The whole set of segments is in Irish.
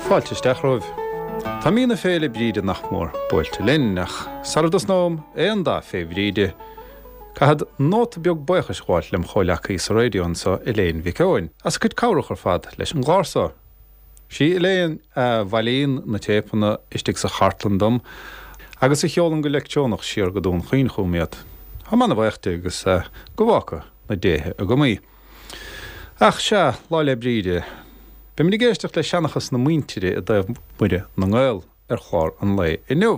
Fáilte isteach romhaibh. Tá mí na Féile Bríde nach mór buailte linn, ach sara dtosnóm aon dath fé Bhríde, caithfead nóta beag buíochais a ghabháilt lem chomhleacaí sa raidió anso, Elaine Mhic Eoin, as a cuid cabhrach ar fad leis an gclár so. Sí Elaine a bhailíonn na téipeanna istigh sa chartlann dom agus a sheolann go leictreonach siar go Dún Chaoin chugam iad. Táim ana-bhaoch di agus go bhfága na déithe agam í. Ach sea, Lá 'le Bríde. Beimid ag éisteacht le seanchas na muintire i dtaobh Muire na nGael ar chlár an lae inniu.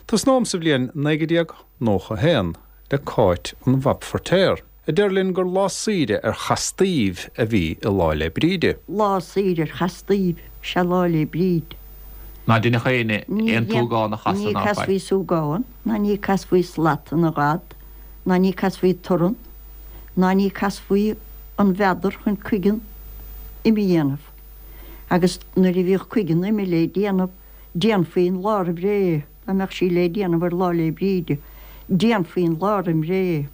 Tosnóm sa bhliain 1991 le Cáit an Bhab Feirtéar, a deir linn gur lá saoire ar chastaíbh a bhí i Lá 'le Bríde. Lá saoire ar chastaíbh is ea Lá 'le Bríde. Ná deineadh éinne aon tsúgán a chasadh Ní ná faic. casfaí súgán, ná ní casfaí slat ina ghad, ná ní casfaí torann, ná ní casfaí an mheadar chun cuigeann ime a dhéanamh. Agus nuair a bhíodh cuigeann ime le déanamh, déanfaí an lá roimh ré, dá mbeadh sí le déanamh ar Lá 'le Bríde, déanfaí an lá roim ré.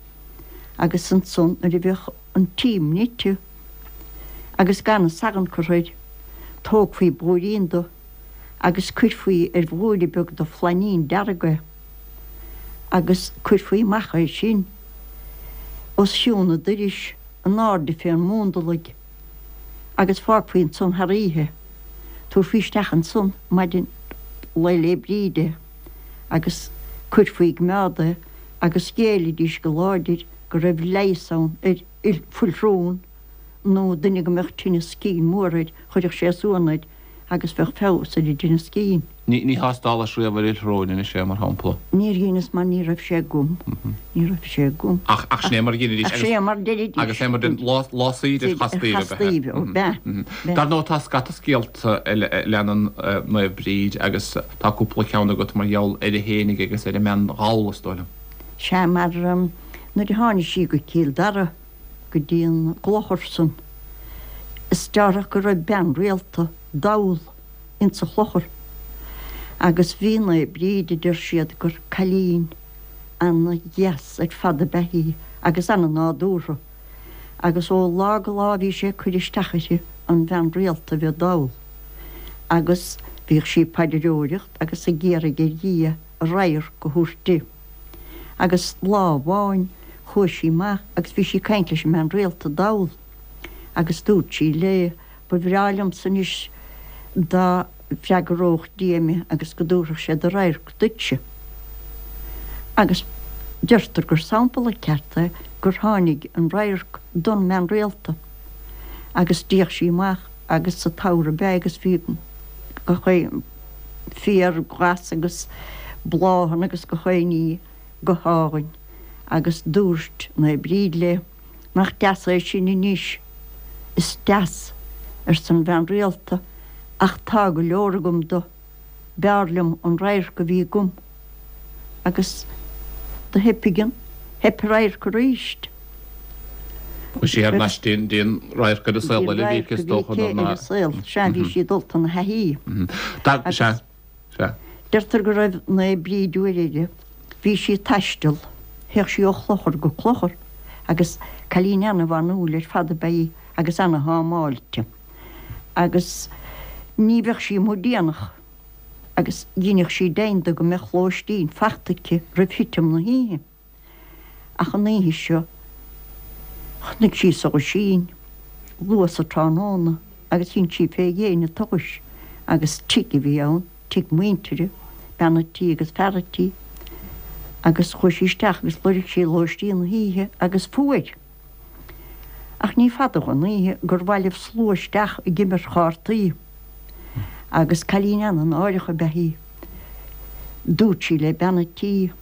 Agus ansan nuair a bheadh an t-im nite agus gan an salann curtha air, tógfaí blúirín do agus cuirfí ar bhlúire beag de flainín dearg é agus cuirfí amach é sin os chionn an doiris in airde fén mhúndalaigh agus fágfaí ansan thar oíche. Tabharfaí isteach ansan maidin Lae 'le Bríde agus cuirfí i gcoimeád é agus ghéillidís go láidir go raibh leigheas ann ar fuilshrón nó duine go mbeadh tinneas cinn mór air, chuirfeadh sé suan air agus bheadh feabhas ar an dtinneas cinn. Ní thástálas riamh ar fhuilshrón anois é, mar shampla. Níor dheineas mar ní raibh sé agam. Ní raibh sé agam. Ach, ach sin é mar a dheinidís. Ach sin é mar deiridís. Agus é mar den lá, lá saoire ar chastaíbh ab ea. Ar chastaíbh, ó b'ea. Dar ndóigh tá scata scéalta eile a leanann Naomh Bríd agus tá cúpla ceann agat mar gheall uirthi fhéinig agus ar an mbean dhall, is dóigh liom. Sea, mar nuair a tháinig sí go Cill Dara, go dtí an gclochar san, is deárthach go raibh bean rialta dall insa chlochar. Agus bhí Naomh Bríd, a deir siad, gur cailín ana dheas ar fad ab ea í agus ana nádúrtha. Agus ó lá go lá bhí sé ag cur isteach uirthi, an bhean rialta a bheith dall. Agus bhíodh sí ag paidreoireacht agus ag iarraidh ar Dhia a radharc a thabhairt di. Agus lá amháin chuaigh sí amach agus bhí sí ag caint leis an mbean rialta dall agus dúirt sí léi, Ba bhreá liomsa anois dá bhfreagródh Dia mé agus go dtabharfadh sé do radharc duitse. Agus deirtear gur sampla ceart é gur tháinig an radharc don mbean rialta. Agus d'fhéach sí amach agus sa tsamhradh ab ea é agus bhí gach aon féar glas agus bláthanna agus gach aon ní go hálainn agus dúirt Naomh Bríd léi, Nach deas é sin anois? Is deas, arsa an bhean rialta, ach tá go leor agam do. B'fhearr liom an radharc a bhí agam. Agus do theipigh an, theip an radharc arís. Chuaigh sí thar n-ais dtí an radharc ar an saol eile a bhí aici, is dócha, nuair ná. Ar an saol, sea, bhí sí dulta ina thaithí. Agus. Sea, sea. Deirtear go raibh Naomh Bríd uair eile, bhí sí ag taisteal, théadh sí ó chlochar go clochar agus cailín ana-bhanúil ar fad ab ea í agus ana-thámáilte. Agus ní bheadh sí amuigh déanach agus dheineadh sí deimhin de go mbeadh lóistín fachta aici roimh thitim na hoíche. Ach an oíche seo chonaic sí solaisín luath sa tráthnóna agus dhein sí fé dhéin an tsolais agus tigh a bhí ann, tigh muintire, bean a' tí agus fear a' tí, agus chuaigh sí isteach agus loirg sí lóistín na hoíche agus fuair. Ach ní fada dhon oíche gur bhailigh slua isteach ag imirt chártaí agus cailín ana-náireach ab ea í. Dúirt sí le bean a' tí,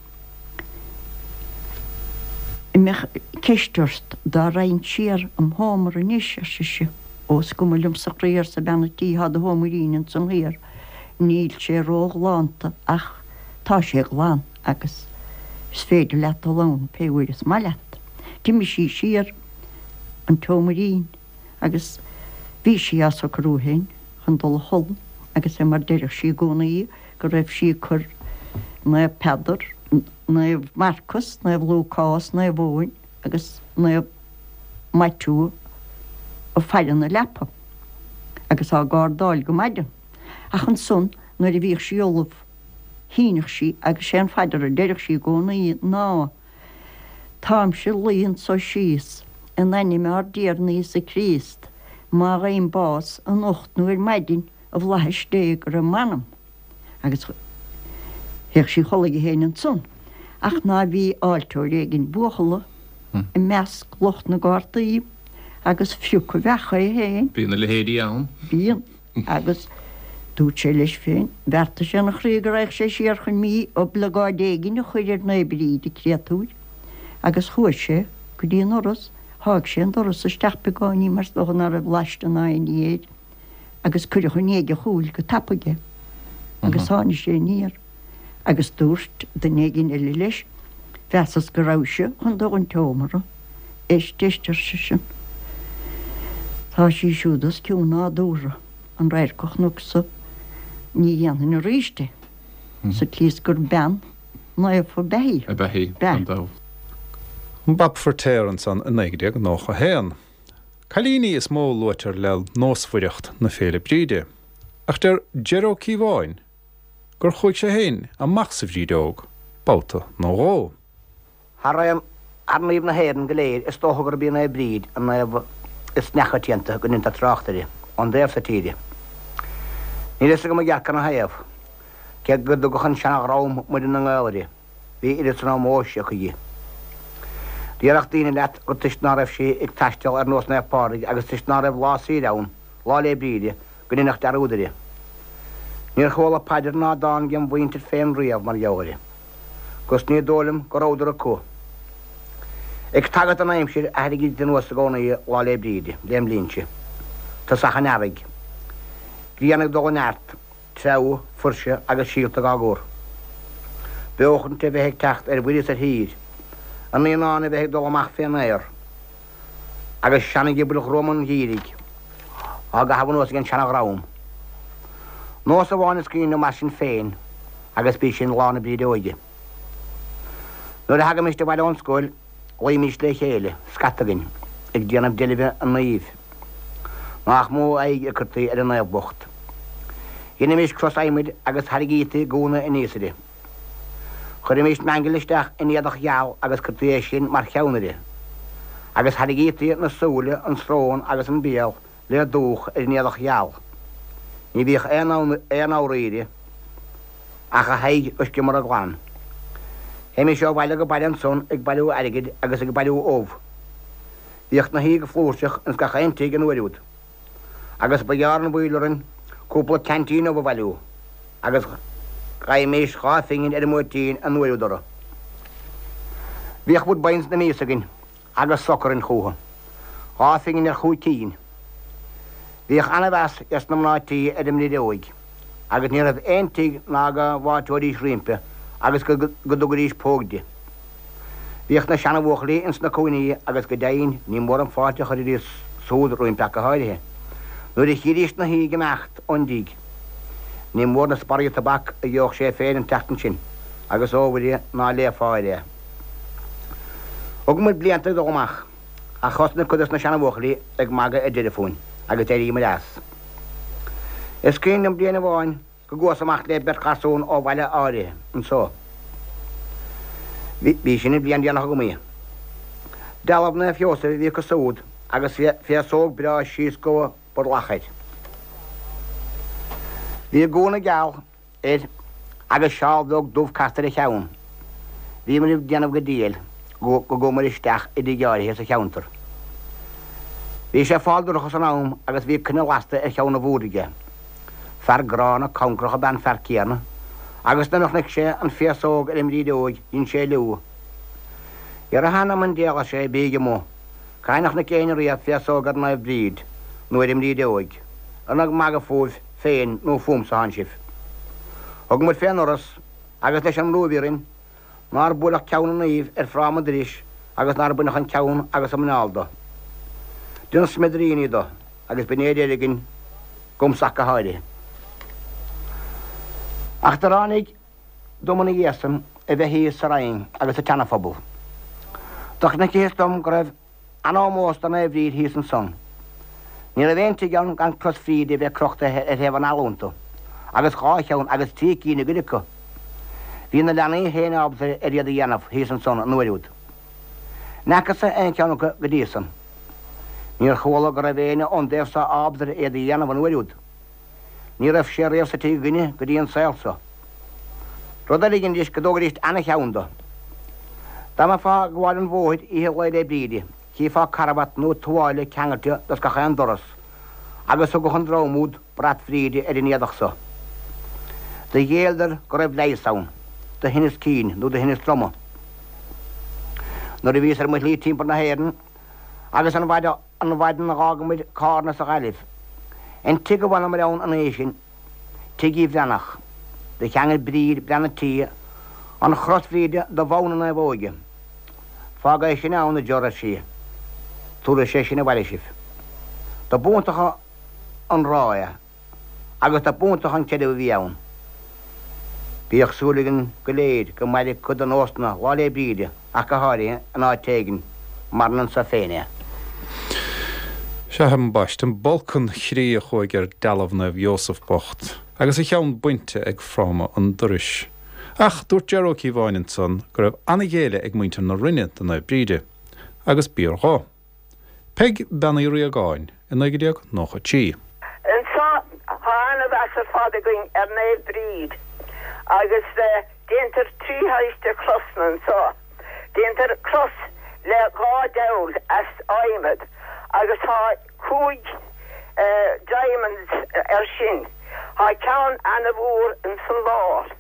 An mbeadh ceist ort dá raghainn siar im sheomra anois, ar sise. Ó, is cuma liomsa a chroí, arsa bean a' tí, thá do sheoimrín ansan thiar. Níl sé ró-ghlánta ach tá sé glan agus is féidir leat dul ann pé uair is maith leat. D'imigh sí siar an tseoimrín agus bhí sí á socrú féin chun dul a chodladh agus é mar deireadh sí i gcónaí go raibh sí ag cur Naomh Peadar, Naomh Marcas, Naomh Lúcás, Naomh Eoin agus Naomh Maitiú ag faire na leapa agus á gcardáil go maidin. Ach ansan nuair a bhíodh sí ullamh shíneadh sí agus sé an phaidir a deireadh sí i gcónaí ná, Táimse luí anso síos, in ainm ár dTiarna Íosa Críost, má gheibhim bás anocht nó ar maidin, i bhflaithis Dé go raibh m'anam. Agus théadh sí a chodladh di féin ansan. Ach ná bhí áilteoir éigin buachalla i measc lucht na gcártaí agus phrioc a bheach é féin. Bíonn a leithéidí ann. Bíonn. Agus dúirt sé leis féin, bheartaigh sé ina chroí go raghadh sé siar chun mí-oibleagáid éigin a chur ar Naomh Bríd, an créatúr. Agus chuaigh sé go dtí an doras, sháigh sé an doras isteach beagáinín mar is dócha ná raibh laiste ná aon ní air. agus cuireadh i ndiaidh a chúil go tapaidh é agus tháinig sé aniar agus dúirt duine éigin eile leis, Mheasas go rabhais-se chun dul 'on tseomra. Éist, éist, ar seisean. Tá sí siúd os cionn nádúrtha, an radharc a chonacsa, ní dhéanfainn aríst é, sa tslí is gur bean naofa ab ea í. Ab ea í, gan dabht. An Bab Feiritéar ansan i 1991. Cailíní is mó a luaitear le nósmhaireacht na Féile Bríde, ach deir Ger Ó Cíobháin gur chuaigh sé féin amach sa bhrídeog babhta nó dhó. Thar aon thar naoimh na hÉireann go léir is dócha gurb í Naomh Bríd an naomh is neachoitianta go ndeintear trácht uirthi ón dtaobh so tíre. Níl fhios agam i gceart canathaobh, cé go dtugadh an seana-dhream Muire na nGael uirthi. Bhí oiread san ómóis acu di. Déarfadh daoine leat gur toisc ná raibh sí ag taisteal ar nós Naomh Pádraig agus toisc ná raibh lá saoire ann, Lá 'le Bríde, go ndeineadh dearúd uirthi. Níor chuala paidir ná dán gem mhuintir féin riamh mar gheall uirthi. 'Gus ní dóigh liom go rabhadar acu. Ag tagairt don aimsir a thairringíd anuas i gcónaí Lá 'le Bríde, lem linnse. Tosach an earraigh. Grian ag dul i neart. Treabhadh, fuirse agus síolta dhá gcur. Beochaint a bheith ag teacht ar mhuir is ar thír. An naíonán a bheith ag dul amach fén aer. Agus seana-ghiobail ghruama an gheimhridh á gcaitheamh anuas ag an seana-dhream. Nós amháin is cuimhin liom mar sin féin agus b'í sin Lá na Brídeoige. Nuair a thagaimist abhaile ón scoil, Luímís le chéile, scata againn, ag déanamh deilbhe an naoimh. Nách mó aghaidh a cuirtí ar an naomh bocht. Dheinimís cros adhmaid agus thairrigítí gúna aníos uirthi. Chuirimís meangail isteach in éadach gheal agus cuirtí é sin mar cheann uirthi. Agus thairrigítí na súile, an srón agus an béal le dúch ar an éadach gheal. Ní bhíodh aon fhabhar uirthi ach a haghaidh go sciomara glan. Théimis ó bhaile go baile ansan ag bailiú airgid agus ag bailiú ubh. Bhíodh 'na shuí go flúirseach ins gach aon tigh an uair úd, agus ba ghearr an mhoill orainn cúpla ceaintín ubh a bhailiú, agus gheibhimís dha phingin ar an mbuairtín an uair úd orthu. Bhíodh Woodbines na mias againn agus soc orainn chúthu. Dha phingin ar chúig cinn. Bhíodh ana-mheas ges na mná tí ar an mBrideoig, agus ní raibh aon tigh ná go bhfáilteoidís roimpi agus go dtugaidís póg di. Bhíodh na seana-bhuachaillí ins na cúinní agus go deimhin ní mór an fáilte a chuiridís súd roimpi ach go háirithe nuair a chídís 'na shuí ag imeacht ón dtigh. Ní mór na sparraí tobac a gheobhadh sé féin an tseachtain sin, agus ó Mhuire ná léifeá air é. Thug muid blianta ag dul amach, ach thosnaigh cuid dos na seana-bhuachaillí ag magadh ar deireadh fúinn, agus d'éiríomair as. Is cuimhin liom bliain amháin go gcuas amach le beirt gharsún ó bhaile áirithe anso. Bhí sin an bhliain déanach agam í. Dealbh Naomh Sheosaimh a bhí acu súd agus féasóg breá síos go brollach air. Bhí gúna geal air agus seál bheag dubh casta ar a cheann. Bhíomair ag déanamh go diail go gcuamair isteach i dtigh áirithe sa cheantar. Bhí sé fál dorcha san am agus bhí coinneal lasta ar cheann a bhúird aige. Fear gránna concrach ab ea an fear céanna agus nuair a chonaic sé an féasóg ar an mBrídeoig dhein sé liú. Ar a hanam 'on diabhal, ar sé, bíg amuigh. Cathain a chonaic éinne riamh féasóg ar Naomh Bríd nó ar an mBrídeoig? An ag magadh fúibh féin nó fúmsa atánn sibh? Thug muid fén ndoras, agus leis an mbrú a bhí orainn, nár buaileadh ceann an naoimh ar fráma an dorais agus nár baineadh an ceann agus an muineál do. Deineadh smidiríní do, agus b'in é a deireadh againn, 'gamsa ach go háirithe. Ach do ráinig dom ina dhiaidh san a bheith thíos sa Rinn agus sa tSeana-Phobal. Do chonacthas dom go raibh an-ómós do Naomh Bríd thíos ansan. Ní raibh aon tigh ann gan cros Bhríde a bheith crochta ar thaobh an fhalla iontu. agus dha cheann agus tri cinn i gcuid acu. Bhí na leanaí féin ábalta ar iad a dhéanamh thíos ansan an uair úd. N'fheacas-sa aon cheann acu go dtí san. Níor chuala go raibh éinne ón dtaobh so ábalta ar iad a dhéanamh an uair úd. Ní raibh sé riamh sa tigh againne go dtí an saol so. Rud eile a dheinidís go dtógaidís ana-cheann do. Dá mbeifeá ag gabháil an bhóthair oíche Lae 'le Bríde, chífeá carbhat nó tuáille ceangailte dos gach aon doras, agus thugadh an dream úd brat Bhríde ar an éadach so. Do ghéilleadar go raibh leigheas ann do thinneas cinn nó do thinneas droma. Nuair a bhíos ar mo shlí timpeall na hÉireann agus an mhaidin a dh'fhágamair Cárna sa Ghaillimh, an tigh a bhfanamair ann an oíche sin, Tigh Uí Bhreathnach, do cheangail Bríd, bean a' tí, an chros Bhríde do bhonn na naomhóige. Fág é sin ann, a Ger, ar sí. Tabharfaidh sé sin abhaile sibh. Do b'iontach an ráth é agus do b'iontach an creideamh a bhí ann. Bíodh súil againn go léir go mairfeadh cuid de nósanna Lá 'le Bríde ach go háirithe in áit éigin mar anso féin é. Sea, ambaiste, an bolcán chroí a chuaigh ar dealbh Naomh Iósaf bocht, agus a cheann bainte ag fráma an dorais. Ach dúirt Ger Ó Cíobháin ansan go raibh an-ghéilleadh ag muintir na Rinne do Naomh Bríde. Agus b'fhíor dho. Peig Bean Uí Riagáin i 1993. Anso tá ana-mheas ar fad againn ar Naomh Bríd agus déantar tri shaghas de chrosanna anso. Déantar cros le dha deabhal as adhmad agus tá chúig diamonds air sin. Tá ceann ana-mhór ins an lár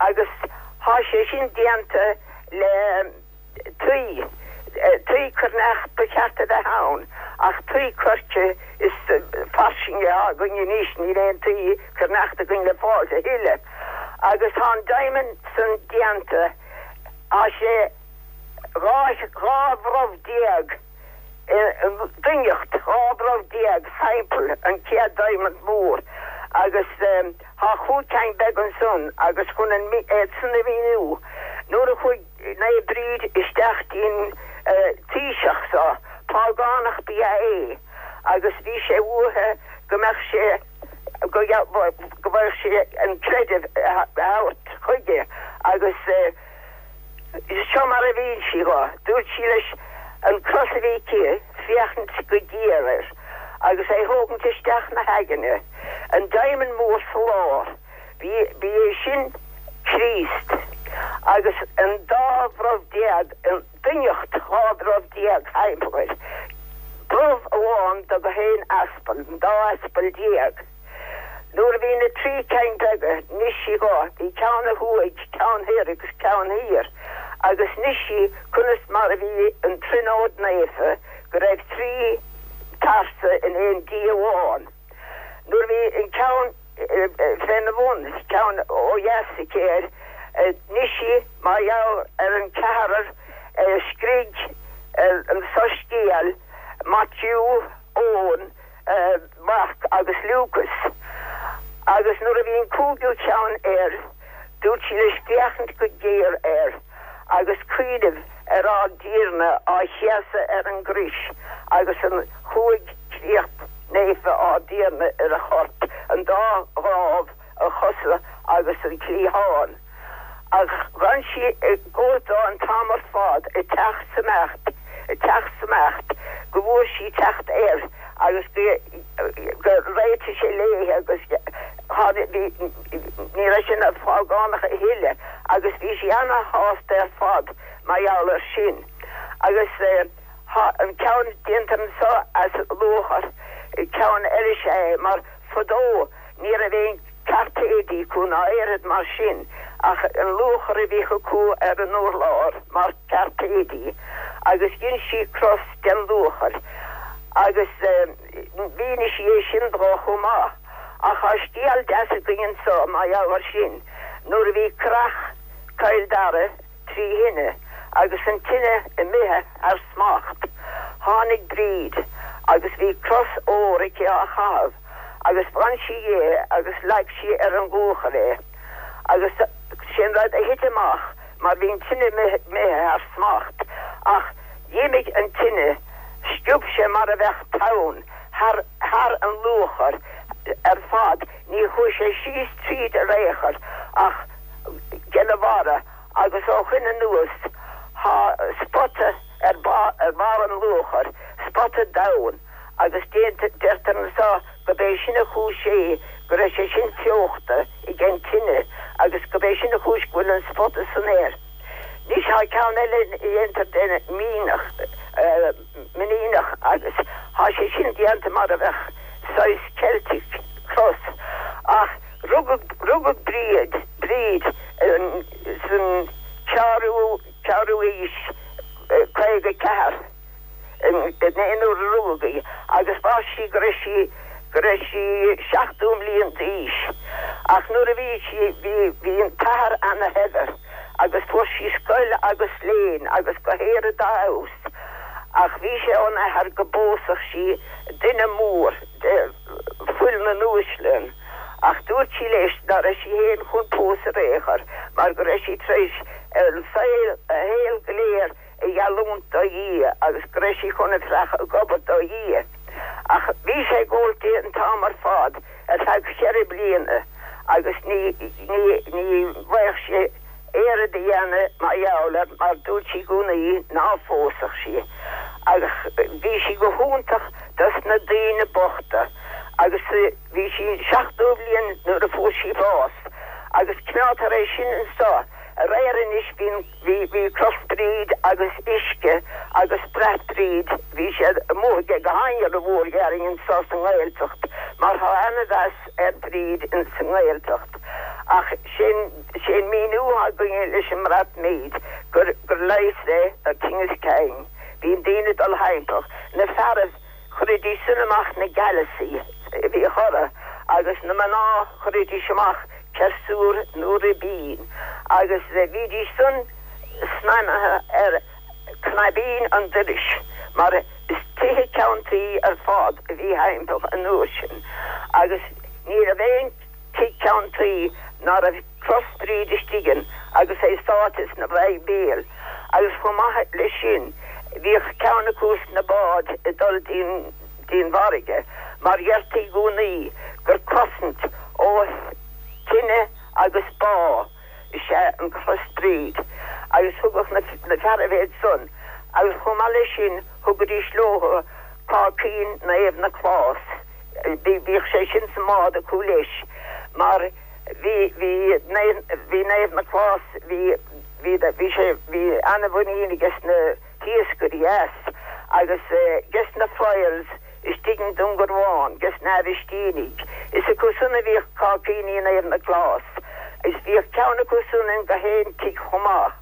agus tá sé sin déanta le. tuí, tuí coirneach ba cheart a bheith ann ach tuí coirce is fairsinge atá againn anois, níl aon tuí coirneachta againn le fáil a thuilleadh. Agus tá an diamond san déanta, tá sé 12 bhrobh i ndoimhneacht, 12 bhrobh thimpeall an chéad diamond mór agus tá chúig ceann beag ansan agus chun an iad san a mhíniú, nuair a chuaigh. Naomh Bríd isteach dtí'n taoiseach so. Págánach ba ea é agus bhí sé uaithe go mbeadh sé go bhfaigheadh sé an creideamh a thabhairt chuige agus seo mar a mhín sí dho. Dúirt sí leis an cros a bhí aici féachaint go géar air agus é thógaint isteach 'na haigne, an diamond mór sa lár. Ba é sin Críost, agus an dá bhrobh déag, an doimhneacht 12 bhrobh thimpeall air, brobh amháin do gach aon aspal, an dá aspal déag. Nuair a bhí na trí ceann beaga, 'nis sí dho, bhí ceann ó thuaidh, ceann thoir agus ceann thiar, agus 'nis sí conas mar a bhí an Tríonóid Naofa, go raibh trí pearsa in aon Dia amháin. Nuair a bhí an ceann féna bhun, ceann ó dheas aici air, 'nis sí mar gheall ar an ceathrar a scrígh an Soiscéal, Maitiú, Eoin, Marc agus Lúcas. Agus nuair a bhí an cúigiú ceann air, dúirt sí leis féachaint go géar air agus cuimhneamh ar ár dTiarna á chéasadh ar an gcrois agus an chúig créacht naofa ár dTiarna ar a chorp, an dá dhrámh, a chosa agus an cliathán. Ach dh'fhan sí i gcóimheá an t-am ar fad ag teacht 's imeacht, ag teacht 's imeacht, go bhfuair sí teacht air agus go réitigh sé léithe agus tháinig, bhí, ní raibh sé ina phágánach a thuilleadh agus bhí sí ana-shásta ar fad mar gheall air sin. Agus. Tá an ceann déanta anso as luachair, ceann eile is ea é, mar fadó ní raibh aon cairpéidí acu ná aon rud mar sin ach an luachar a bhíodh acu ar an urlár mar chairpéidí agus dhein sí cros den luachair agus mhínigh sí é sin dó chomh maith. Ach tá scéal deas againn anso mar gheall air sin, nuair a bhí curach Chill Dara, tri thine, agus an tine imithe thar smacht. Tháinig Bríd, agus bhí cros óir aici á chaitheamh, agus bhain sí dhi é agus leag sí ar an luachar é. Agus sé'n rud a thit amach, mar bhí an tine imithe thar smacht, ach d'imigh an tine, sciob sé mar a bheadh tonn thar thar an luachar. ar fad, ní chuaigh sé síos tríd ar aon chor ach gena bharra agus ó shoin anuas thá spota ar barr an luachair, spota donn agus deirtear anso go b'é sin a chúis é go raibh sé sin fiuchta ag an tine agus go b'é sin a chúis go bhfuil an spota san air. Anois thá ceann eile a dhéantar den mianach, mianach agus thá sé sin déanta mar a bheadh saghas Celtic cross ach rugadh, rugadh Bríd, Bríd san ceathrú, ceathrú aois, 54. in aon uair a rugadh í agus mhair sí go raibh sí go raibh sí 70 mbliain d'aois. Ach nuair a bhí sí bhí bhí an t-athair ana shaibhir agus fuair sí scoil agus léinn agus go oiread dá fheabhas ach bhí sé ón athair go bpósfadh sí duine mór de fuil na n-uaisle ach dúirt sí leis ná raibh sí féin chun pósadh ar aon chor mar go raibh sí tar éis an saol a shaol go léir a gheallúint do Dhia agus go raibh sí chun a bheith ag obair do Dhia. Ach bhí sé ag gabháilt di an t-am ar fad ar feadh cheithre bliana agus ní ní ní bhfaigheadh sé oiread a dhéanamh mar gheall air mar dúirt sí i gcónaí ná phósfadh sí. Ach bhí sí go hiontach dos na daoine bochta agus bhí sí 70 bliain nuair a fuair sí bás agus coimeádtar é sin anso aréir anois bíonn Bhí, bhí Cros Bríd agus uisce agus brat Bríd, bhí siad amuigh aige go han-mhór déarfainn anso sa nGaeltacht mar thá ana-mheas ar Bríd ins an nGaeltacht. Ach sé'n, sé'n míniú athá againne leis an mbrat mead gur, gur leigheas é do tinneas cinn. Bíonn daoine ag dul thimpeall, na fearaibh, Chuiridís san amach na gealasaí a bhíodh orthu agus na mná chuiridís amach ciarsúr nó ribín agus bhídís san snaidhmthe ar cnaibín an dorais mar is tithe ceann tuí ar fad a bhí thimpeall an uair sin agus ní raibh aon tigh ceann tuí ná raibh Cros Bríd istigh ann agus é sáite sna Bhibéil agus chomh maith leis sin bhíodh ceann acu sna báid ag dul dtí'n bhfarraige mar dheirtí i gcónaí gur cosaint ó thine agus bá is ea an Chros Bríd agus thugadh na fearaibh iad san agus chomh maith leis sin thugaidís leothu cáicín Naomh Nioclás bhíodh sé sin sa mbád acu leis mar Bhí, bhí, bhí Naomh Nioclás, bhí, bhí, bhí sé, bhí ana-mhuinín aige sna hiascairí as agus aige sna friars istigh i nDún Garbhán, aige sna Aibhistínigh. Is acu san a bhíodh cáicíní Naomh Nioclás. Is bhíodh ceann acu san in gach aon tigh chomh maith.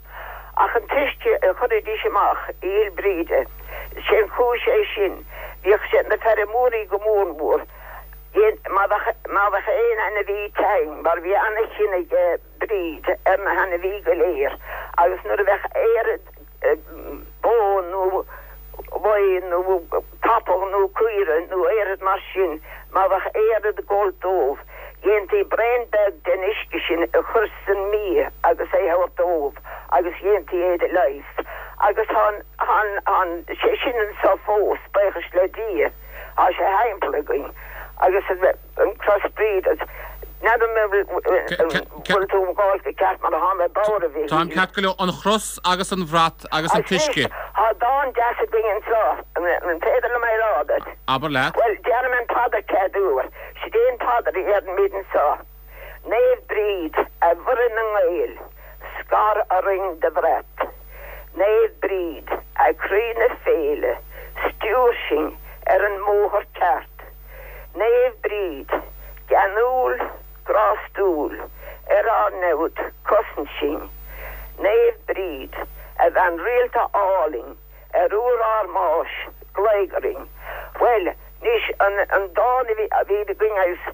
Ach an t-uisce a chuiridís amach i Oíche Bhríde, sé an chúis é sin, bhíodh sé na feirmeoirí go mór mór, Má bheadh aon ainmhí tinn, mar bhí ana-chion aige Bríd ar na hainmhí go léir, agus nuair a bheadh oiread bó nó lao nó capall nó caora nó oiread mar sin, má bheadh oiread ag gabháilt dóibh, dhéantaí braon beag den uisce sin a chur san mbia agus é thabhairt dóibh agus dhéantaí é do leigheas. Agus tá an, sé sin anso fós, buíochas le Dia. Tá sé thimpeall againn agus an Cros Bríd agus n'fheadar an bhfuil tú ag gabháil go ceart mar atá mé bodhar a Mhichíl. Táim ceart go leor. An chros agus an bhrat agus an t-uisce. Tá dán deas againn anseo. An féidir liom é a rá duit? Abair leat. Bhuel, déarfaidh mé an phaidir chéad uair. Sid é an phaidir a deirimid anseo. Naomh Bríd, a Mhuire na nGael, scar orainn do bhrat. Naomh Bríd, a croí na féile, stiúir sinn ar an mbóthar ceart. Naomh Bríd, geanúil, grástúil, ar ár namhaid, cosain sinn. Naomh Bríd, a bhean rialta álainn, ar uair ár mbáis, glaoigh orainn. Bhuel, anois, an dán a bhí againn agus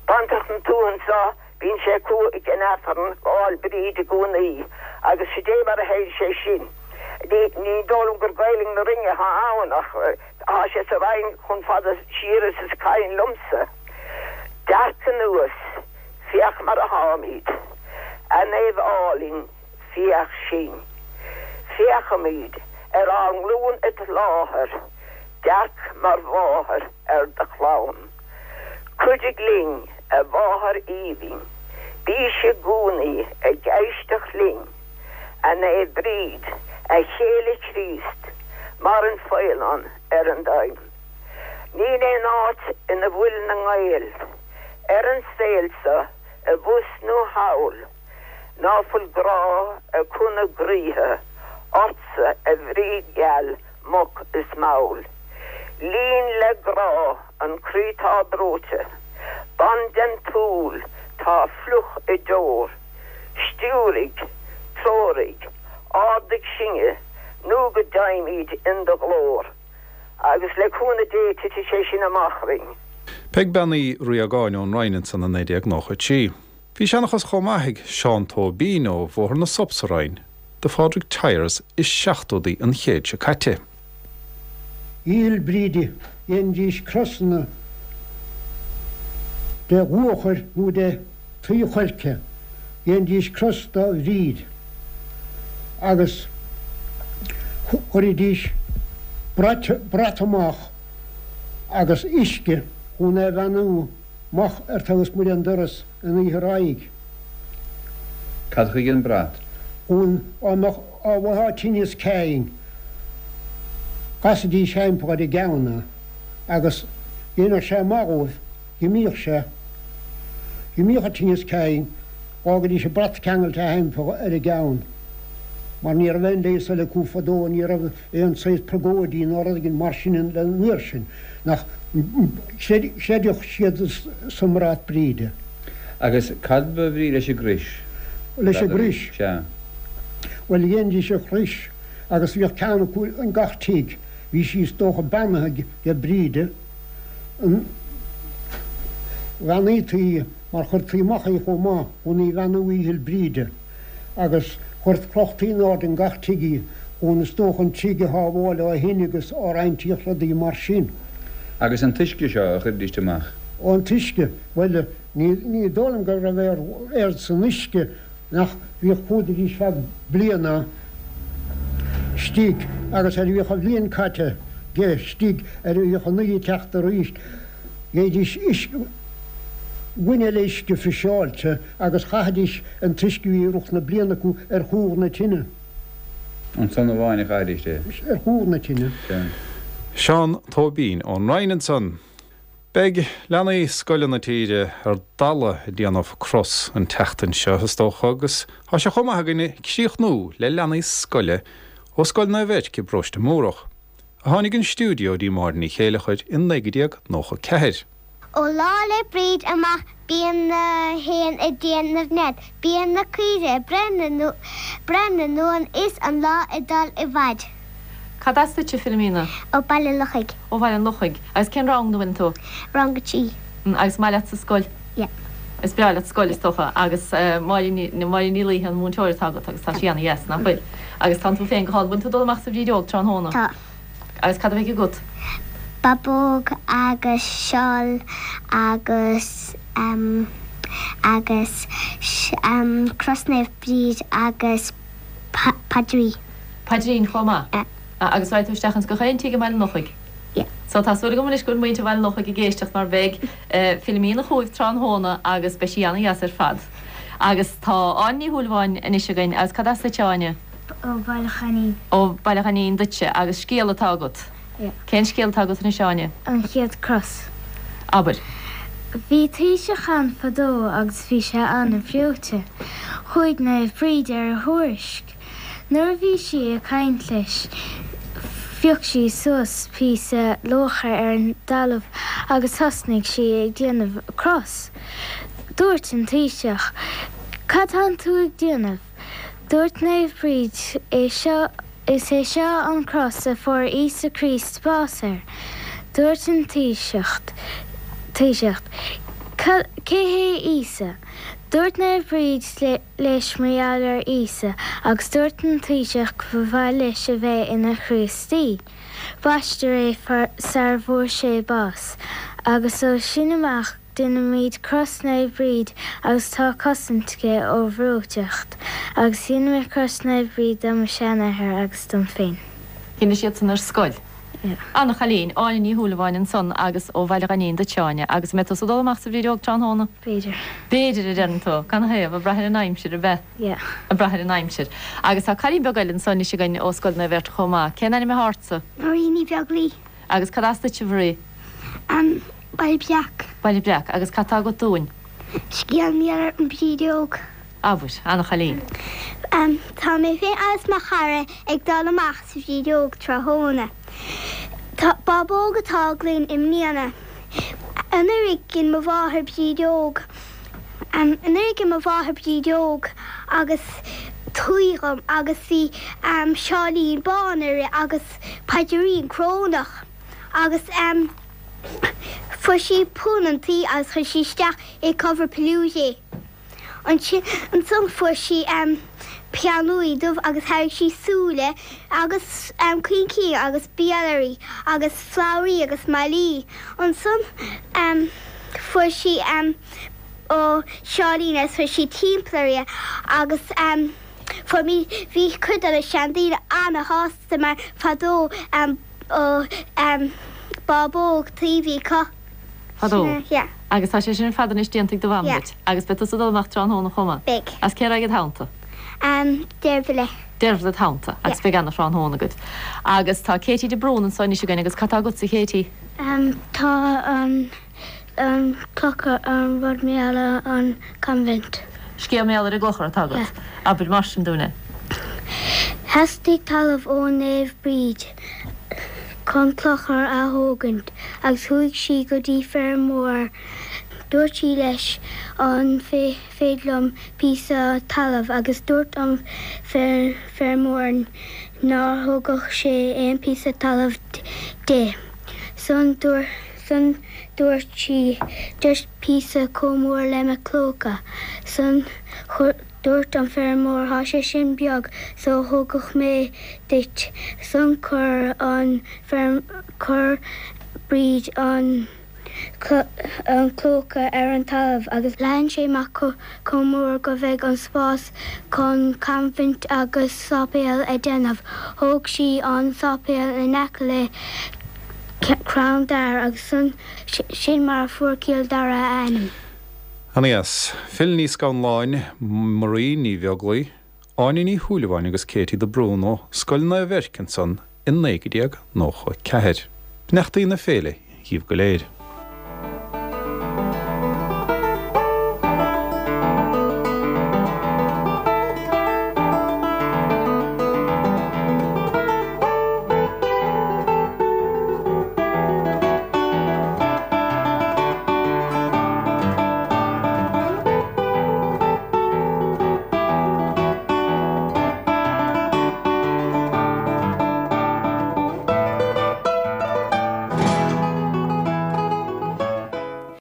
baintreach na tuaithe anseo, Bíonn sé acu ag an Aifreann Lá'il Bríd i gcónaí agus sid é mar a théann sé sin. Ní dóigh liom gur Gaelainn na Rinne atá ann ach tá sé sa Rinn chomh fada siar is is cuimhin liomsa. Dearc anuas, féach mar a tháimid, a Naomh álainn, féach sinn. Féachaimid ar ár nglúin id láthair, dearc mar mháthair ar do chlann. Cuidigh linn, a Mháthair aoibhinn, bís i gcónaí ag éisteacht linn, a Naomh Bríd, a chéile Chríost, mar an faoileán ar an dtoinn. Níl aon áit ina bhfuil na nGael ar an saol seo i bhfus nó thall ná fuil grá acu 'na gcroíthe ortsa a Bhríd gheal moch is mall. Líon le grá an croí tá breoite, bain den tsúil tá fliuch i deor, stiúraigh, treoraigh, ardaigh sinne nó go dteigheimíd in do ghlór. Agus le cúnamh Dé titfidh sé sin amach orainn. Peig Bean Uí Riagáin ón Rinn ansan i 1993. Bhí seanchas chomh maith ag Seán Tóibín ó Bhóthar na Sop sa Rinn do Phádraig Tyers i seachtóidí an chéid seo caite. Oíche Fhéil' Bríde dhéanfaidís crosanna de luachair nó de tuí choirce, dhéanfaidís cros do Bhríd agus chuiridís brat amach agus uisce chun é bheannú amach ar taobh ismuigh den doras an oíche roimhe. Cad chuige an brat? Chun dá mbeadh dá bhfaightheá tinneas cinn, chasaidís thimpeall ar a gceann é agus dhéanfadh sé maith dhóibh. Dh'imíodh sé. Dh'imíodh an tinneas cinn, dh'fhágaidís an brat ceangailte thimpeall ar a gceann, mar ní raibh aon leigheas eile acu fadó, ní raibh aon saghas purgóidí ná rud éigin mar sin an uair sin, nach chreideadh siad sa mbrat Bríde. Agus cad ba bhrí leis an gcrois? Leis an gcrois? Sea. Bhuel, dhéanfaidís an chrois agus bhíodh ceann acu in gach tigh, bhí sí is dócha beannaithe ag Bríde. an bheannaítí í mar chuirtí amach í chomh maith chun í bheannú Oíche Fhéil' Bríde agus chuir chrochtaí in airde in gach tigh í chun is dócha an tigh a shábháil ó thine agus ó roinnt rudaí mar sin. Agus an t-uisce seo a chuiridíst amach? Ó an t-uisce, bhuel ní ní dóigh liom go raibh aon rud san uisce nach bhíodh fuadaidís feadh bliana istigh agus ar a bhíodh an bhliain caite de istigh ar a bhíodh an oíche ag teacht arís gheibhidís uisce gloine eile uisce friseáilte agus chaithidís an t-uisce a bhí i rith na bliana acu ar chúl na tine. Ansan amháin a chaithidís é. Ar chúl na tine. Sea. Seán Tóibín ón Rinn ansan. Beidh leanaí scoile na tíre ar dalladh ag déanamh cros an tseachtain seo, is dócha, agus tá sé chomh maith againne críochnú le leanaí scoile ó Scoil Naomh Eirc i bParóiste Múrach, a tháinig 'on stiúideo dtí Máire Ní Chéileachair i 1994. Ó Lá 'le Bríd amach bíonn na héin ag déanamh nead, bíonn na caoirigh ag breith na n-uan is an lá ag dul i bhfaid. Cad as duitse, Philomena? Ó Baile an Lochaigh. Ó Bhaile an Lochaigh. Agus cén rang ina bhfuileann tú? Rang 3. Agus maith leat sa scoil? Yeah. Is breá leat scoil, is dócha. Agus Máire Ní Máire Ní Laoithe an múinteoir atá agat agus tá sí ana-dheas, nach bhfuil? Agus tánn tú féin go hálainn. Bhfuil tú ag dul amach sa bhrídeog tráthnóna? Tá. Agus cad a bheidh agat? Babóg agus seál agus em agus em Cros Naomh Bríd agus paidrín. Paidrín chomh maith? Yeah. Agus raghaidh tú isteach ins gach aon tigh i mBaile an Lochaigh? Yeah. So tá súil agam anois go bhfuil muintir Bhaile an Lochaigh ag éisteacht mar beidh Philomena chugaibh tráthnóna agus beidh sí ana-dheas ar fad. Agus tá Áine Ní Shúilleabháin anois againn agus cad as duit Áine? Ó Bhaile Choinín. Ó Bhaile Choinín duitse agus scéal atá agat? Yeah. Cén scéal atá agat anois Áine? An Chéad Cros. Abair. Bhí taoiseach ann fadó agus bhí sé an-bhreoite. Chuaigh Naomh Bríd ar a thuairisc. Nuair a bhí sí ag caint leis phioc sí suas píosa luachair ar an dtalamh agus thosnaigh sí ag déanamh cros. Dúirt an taoiseach, Cad tánn tú ag déanamh? Dúirt Naomh Bríd, É seo, is é seo an cros a fuair Íosa Críost bás air. Dúirt an taoiseach, taoiseach, Cé hé Íosa? Dúirt Naomh Bríd leis mar gheall ar Íosa agus dúirt an taoiseach go ba mhaith leis a bheith ina Chríostaí. Baisteadh é sar bhfuair sé bás agus ó sin amach Deinimíd cros Naomh Bríd agus tá cosaint aici ó bhreoiteacht agus dhein mé cros Naomh Bríd do mo sheanathair agus dom féin. Dhein siadsan ar scoil. Yeah. Ana chailín, Áine Ní Shúilleabháin ansan agus ó Bhaile Ghainín duit Áine. Agus an mbeidh tusa ag dul amach sa Bhrídeog tráthnóna? B'fhéidir. B'fhéidir, a deireann tú. Canathaobh? Ag brath ar an aimsir, ab ea? Yeah. Ag brath ar an aimsir. Agus tá cailín beag eile anso anois againn ó Scoil Naomh Erc chomh maith. Cén ainm atá ortsa? Marie Ní Bheaglaoi. Agus cad as duit, a Mharie? An Baile Breac. Baile Breac. Agus cad tá agat dúinn? Scéal mar gheall ar an Bhrídeog. Abair, ana-chailín. Tá mé féin agus mo chara ag dul amach sa Bhrídeog tráthnóna. Tá bábóg atá againn i mbliana. Anuraidh dhein mo mháthair brídeog. Anuraidh dhein mo mháthair brídeog agus tuí dhom agus bhí seáilín bán uirthi agus paidirín corónach agus fuair sí punann tuí agus chuir sí isteach i cover peluche é. Ansin ansan fuair sí peann luaidhe dubh agus tharraing sí súile agus coincín agus béal uirthi agus slabhraí agus malaí. Ansan fuair sí ó seáilín agus chuir sí timpeall uirthi agus fuair mé bhí cuid de na seandaoine ana-shásta mar fadó ó bábóg tuí a bhí acu. Fadó. Yeah. Agus tá sé sin ar fad anois déanta ag do mham Yeah. duit. Agus beidh tusa ag dul amach tráthnóna chomh maith. Beidh. Agus cé raghaidh id theannta? Um, Deirbhile. Deirbhile id theannta. Agus Yeah. beidh ana-thráthnóna agaibh. Agus tá Katie de Brún anso anois againn agus cad tá agatsa, a Katie? Um, tá an, an clochar, an rud mar gheall ar an convent. Scéal mar gheall ar an gclochar atá agat. Yeah. Abair mar sin dúinn é. Theastaigh talamh ó Naomh Bríd chun clochar a thógaint agus chuaigh sí go dtí feirmeoir. Dúirt sí leis an féidir liom píosa talaimh agus dúirt an feirmeoir nár thugadh sé aon píosa talaimh di. San dúirt sí just píosa chomh mór le mo clóca. San Dúirt an feirmeoir thá sé sin beag so thógfadh mé duit san chuir an chuir Bríd an an clóca ar an talamh agus leathan sé amach chomh mór go bheadh an spás chun convent agus sáipéal a déanamh. Thóg sí an sáipéal in aice le crann dair agus san sin mar a fuair Cill Dara a ainm. Ana-dheas. Phil Ní Scanláin, Marie Ní Bheaglaoi, Áine Ní Shúilleabháin agus Katie de Brún ó Scoil Naomh Eirc ansan i 1994. Beannachtaí na féile dhíbh go léir.